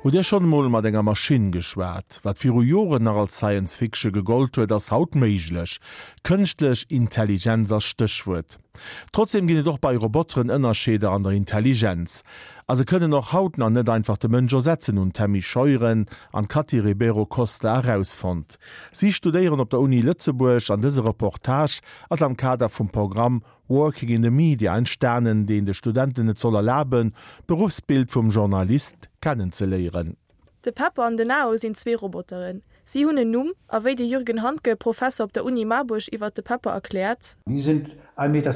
Hutt Dir schonn emol mat enger Maschinn geschwat? Wat viru Joren nach als Science Fiction gegollt huet, ass haut méiglech. Kënschtlech Intelligenz ass Stéchwuert. Trotzdeem ginn et och bei Roboteren Ënnerscheeder an der Intelligenz. A se kënnen och haut nach net einfach de Mënsch ersetzen, hunn d'Tammy Scheuren an d'Cathy Ribeiro Costa erausfonnt. Si studéieren op der Uni Lëtzebuerg an dëse Reportage ass am Kader vum Programm Working in the Media entstanen, deen de Studenten et soll erlaben, d'Beruffsbild vum Journalist kennenzeléieren. De Pepper an den Nao sinn zwee Roboteren. Si hunn en Numm, a wéi de Jürgen Handke, Professer op der Uni Marburg iwwert de Pepper erkläert. Die sind 1,20 Meter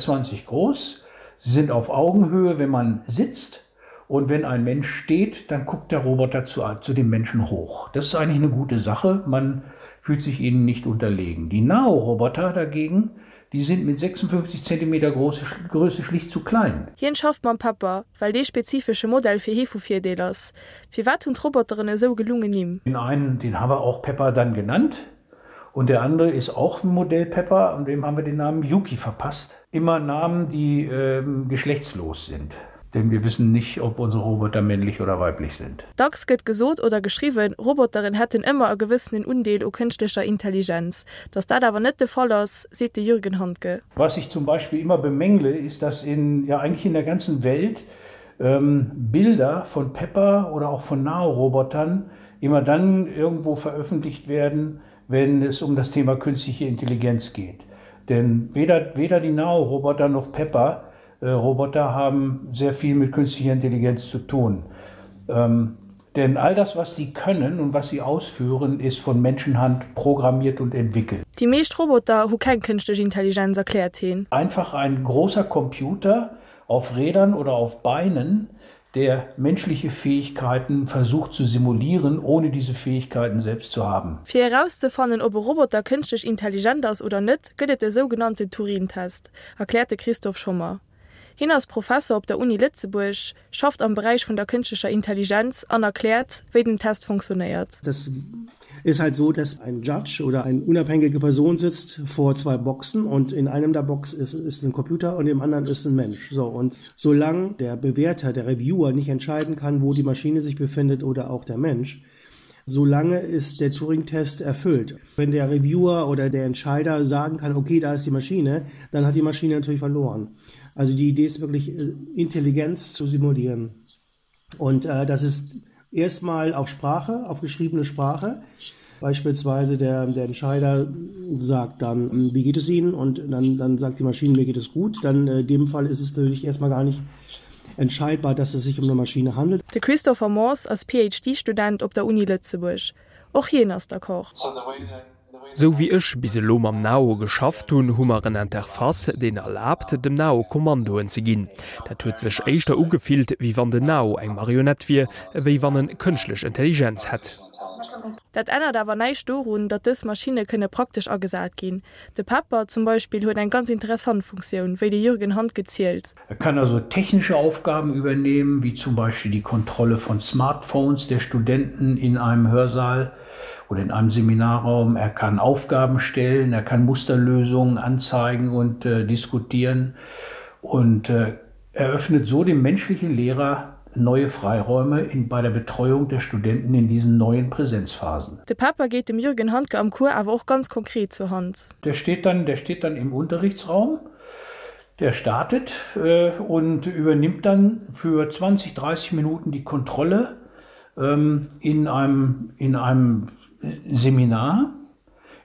groß, sie sind auf Augenhöhe, wenn man sitzt und wenn ein Mensch steht, dann guckt der Roboter zu, zu dem Menschen hoch. Das ist eigentlich eine gute Sache, man fühlt sich ihnen nicht unterlegen. Die Nao-Roboter dagegen, die sind mit 56 Zentimeter große, Größe schlicht zu klein. Hien schafft mam Pepper, well dee spezifesche Modell fir hie vu Virdeel ass. Firwat hunn d'Roboteren esou gelungen Nimm? Den einen, den haben wir auch Pepper dann genannt und der andere ist auch ein Modell Pepper und dem haben wir den Namen Yuki verpasst. Immer Namen, die ähm, geschlechtslos sind. Denn wir wissen nicht, ob unsere Roboter männlich oder weiblich sind. Dacks gëtt gesot oder geschriwwen, Roboteren hätten ëmmer e gewëssenen Undeel u kënschtlecher Intelligenz. Datt dat awer net de Fall ass, seet de Jürgen Handke. Was ich zum Beispiel immer bemängle, ist, dass in, ja eigentlich in der ganzen Welt ähm, Bilder von Pepper oder auch von Nao-Robotern immer dann irgendwo veröffentlicht werden, wenn es um das Thema künstliche Intelligenz geht. Denn weder, weder die Nao-Roboter noch Pepper äh, Roboter haben sehr viel mit künstlicher Intelligenz zu tun. Ähm, denn all das, was sie können und was sie ausführen, ist von Menschenhand programmiert und entwickelt. Déi meescht Roboter hu keng kënschtlech Intelligenz, erkläert hien. Einfach ein großer Computer auf Rädern oder auf Beinen, der menschliche Fähigkeiten versucht zu simulieren, ohne diese Fähigkeiten selbst zu haben. Fir erauszefannen, ob e Roboter kënschtlech intelligent ass oder net, gëtt et de sougenannten Turin-Test, erkläert de Christoph Schommer. Hien ass Professer op der Uni Lëtzebuerg, schafft am Beräich vun der kënschtlecher Intelligenz an erkläert, wéi den Test funktionéiert. Das ist halt so, dass ein Judge oder eine unabhängige Person sitzt vor zwei Boxen und in einem der Box ist, ist ein Computer und im anderen ist ein Mensch. So, und solange der Bewerter, der Reviewer nicht entscheiden kann, wo die Maschine sich befindet oder auch der Mensch, solange ist der Turing-Test erfüllt. Wenn der Reviewer oder der Entscheider sagen kann, okay, da ist die Maschine, dann hat die Maschine natürlich verloren. Also die Idee ist wirklich, äh, Intelligenz zu simulieren. Und äh, das ist erstmal auf Sprache, auf geschriebene Sprache. Beispielsweise der, der Entscheider sagt dann, hm, wie geht es Ihnen? Und dann, dann sagt die Maschine, mir geht es gut. Dann äh, in dem Fall ist es natürlich erstmal gar nicht entscheidbar, dass es sich um eine Maschine handelt. De Christopher Morse ass PhD-Student op der Uni Lëtzebuerg. Och hien ass d'accord. Sou wéi ech bis elo mam Nao geschafft hunn, hu mer en Interface, deen erlaabt, dem Nao Kommandoen ze ginn. Dat huet sech éischter ugefillt, wéi wann den Nao eng Marionett wier, ewéi wann en kënschtlech Intelligenz hätt. Dat ännert awer näischt dorun, datt dës Maschinne kënne praktesch agesat ginn. De Pepper zum Beispill huet eng ganz interessant Funktioun, wéi de Jürgen Handke zielt. Er kann also technische Aufgaben übernehmen, wie zum Beispiel die Kontrolle von Smartphones der Studenten in einem Hörsaal oder in einem Seminarraum. Er kann Aufgaben stellen, er kann Musterlösungen anzeigen und äh, diskutieren und äh, eröffnet so dem menschlichen Lehrer neue Freiräume in, bei der Betreuung der Studenten in diesen neuen Präsenzphasen. De Pepper geet dem Jürgen Handke am Cours awer och ganz konkret zur Hand. Der steht dann, der steht dann im Unterrichtsraum, der startet äh, und übernimmt dann für 20, 30 Minuten die Kontrolle ähm, in einem, in einem Seminar,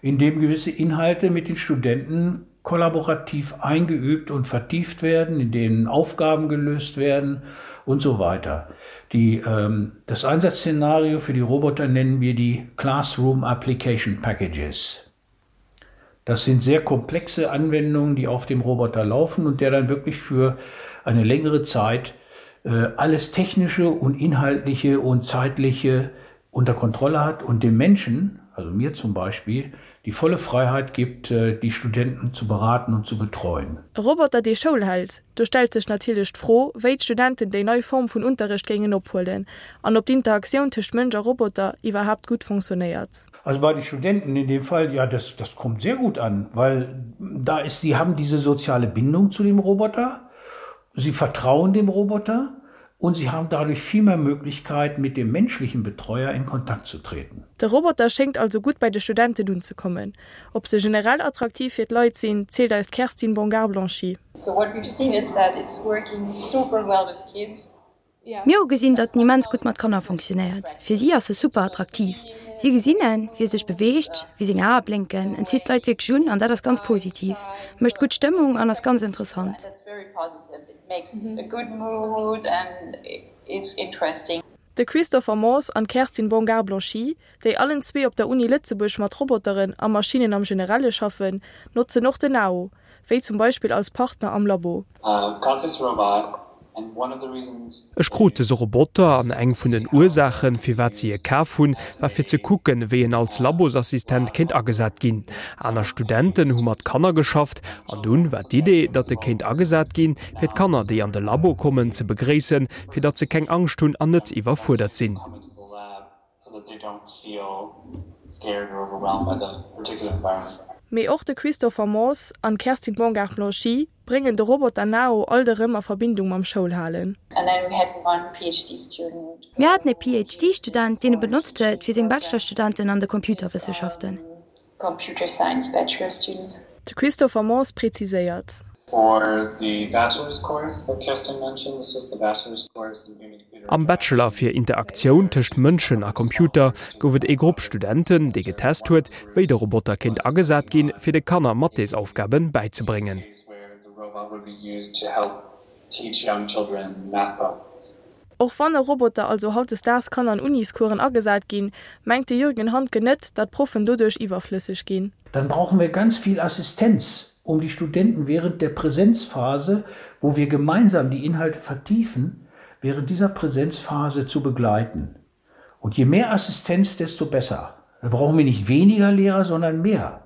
in dem gewisse Inhalte mit den Studenten kollaborativ eingeübt und vertieft werden, in denen Aufgaben gelöst werden und so weiter. Die, ähm, das Einsatzszenario für die Roboter nennen wir die Classroom Application Packages. Das sind sehr komplexe Anwendungen, die auf dem Roboter laufen und der dann wirklich für eine längere Zeit äh, alles technische und inhaltliche und zeitliche unter Kontrolle hat und dem Menschen, also mir zum Beispiel, die volle Freiheit gibt, äh, die Studenten zu beraten und zu betreuen. E Roboter, dee Schoul hält? Do stellt sech natierlech d'Fro, wéi d'Studenten déi nei Form vun Unterrecht géingen ophuelen an ob d'Interaktioun tëscht Mënsch a Roboter iwwerhaapt gutt fonctionnéiert. Also bei den Studenten in dem Fall, ja, das, das kommt sehr gut an, weil da ist, die haben diese soziale Bindung zu dem Roboter, sie vertrauen dem Roboter. Und sie haben dadurch viel mehr Möglichkeiten, mit dem menschlichen Betreuer in Kontakt zu treten. De Roboter schéngt also gutt bei de Studenten unzekommen. Ob se generell attraktiv fir d'Leit sinn, zielt eis d'Kerstin Bongard-Blanchy. So what we've seen is that it's working super well with kids. Mir hu gesinn, datt en immens gutt mat Kanner fonctionnéiert. Fir si ass e super attraktiv. Si gesinn en, wéi e sech beweegt, wéi seng Ae blénken. En zitt d'Leit wierklech un an dat ass ganz positiv, mécht gutt Stëmmung an ass ganz interessant. De Christopher Morse an d'Kerstin Bongard-Blanchy, déi allen zwee op der Uni Lëtzebuerg mat Roboteren a Maschinnen am Generelle schaffen, notzen och den Nao, wéi zum Beispill als Partner am Labo. Ech krut dëse Roboter an eng vun den Ursaachen, firwat si e kaf hunn, war fir ze kucken, wéi en als Labosassistent kéint agesat ginn. Aner Studenten hu mat Kanner geschafft an dunn war d'Idee, datt e kéint agesat ginn, fir d'Kanner, déi an de Labo kommen, ze begréissen, fir datt se keng Angscht hunn an net iwwerfuerdert sinn. Mee och de Christopher Morse an d'Kerstin Bongard-Blanchy bréngen de Roboter Nao alt erëm a Verbindung mam Schoulhalen. Mir haten e PhD-Student, deen e benotzt huet fir seng Bachelorstudenten an de Computerwëssenschaften. De Christopher Morse präziséiert. Am Bachelor fir Interaktioun tëscht Mënschen a Computer gouf et ee Grupp Studenten, dee getest huet, wéi de Roboter kéint agesat ginn, fir de Kanner Mathesaufgabe bäizebréngen. Och wann e Roboter also hautdesdaags kann an Uniscoursen agesat ginn, mengt de Jürgen Handke net, datt Proffen doduerch iwwerflësseg ginn. Dann brauchen wir ganz viel Assistenz, um die Studenten während der Präsenzphase, wo wir gemeinsam die Inhalte vertiefen, während dieser Präsenzphase zu begleiten. Und je mehr Assistenz, desto besser. Da brauchen wir nicht weniger Lehrer, sondern mehr.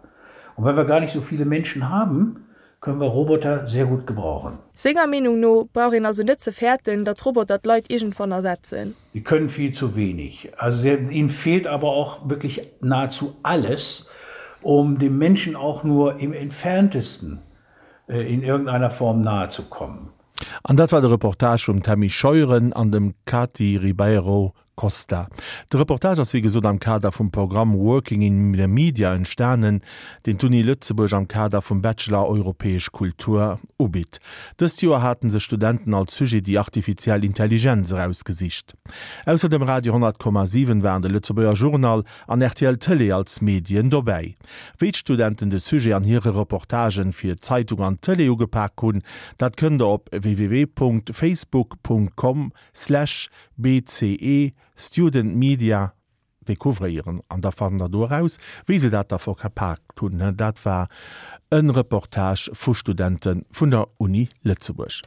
Und weil wir gar nicht so viele Menschen haben, können wir Roboter sehr gut gebrauchen. Senger Meenung no brauch een also net ze fäerten, datt Roboter d'Leit iergendwann ersetzen. Die können viel zu wenig. Also ihnen fehlt aber auch wirklich nahezu alles, um dem Menschen auch nur im entferntesten in irgendeiner Form nahe zu kommen. An dat war de Reportage vum Tammy Scheuren an dem Kati Ribeiro Costa. De Reportage ass wéi gesot am Kader vum Programm Working in the Media entstanen, deen d'Uni Lëtzebuerg am Kader vum Bachelor Europäesch Kultur ubitt. Dëst Joer haten sech Studenten als Sujet déi artifiziell Intelligenz erausgesicht. Ausser dem Radio 100,7 waren de Lëtzebuerger Journal an rtl Tëlee als Medien dobäi. Wéi d'Studenten de Sujet an hire Reportagen fir Zeitung an Tëlee ugepak hunn, dat kënnt der op www.facebook.com slash bce studentmedia decouvréieren an da fannt der do eraus, wéi se dat da verpaakt hunn. Dat war e Reportage vu Studente vun der Uni Lëtzebuerg.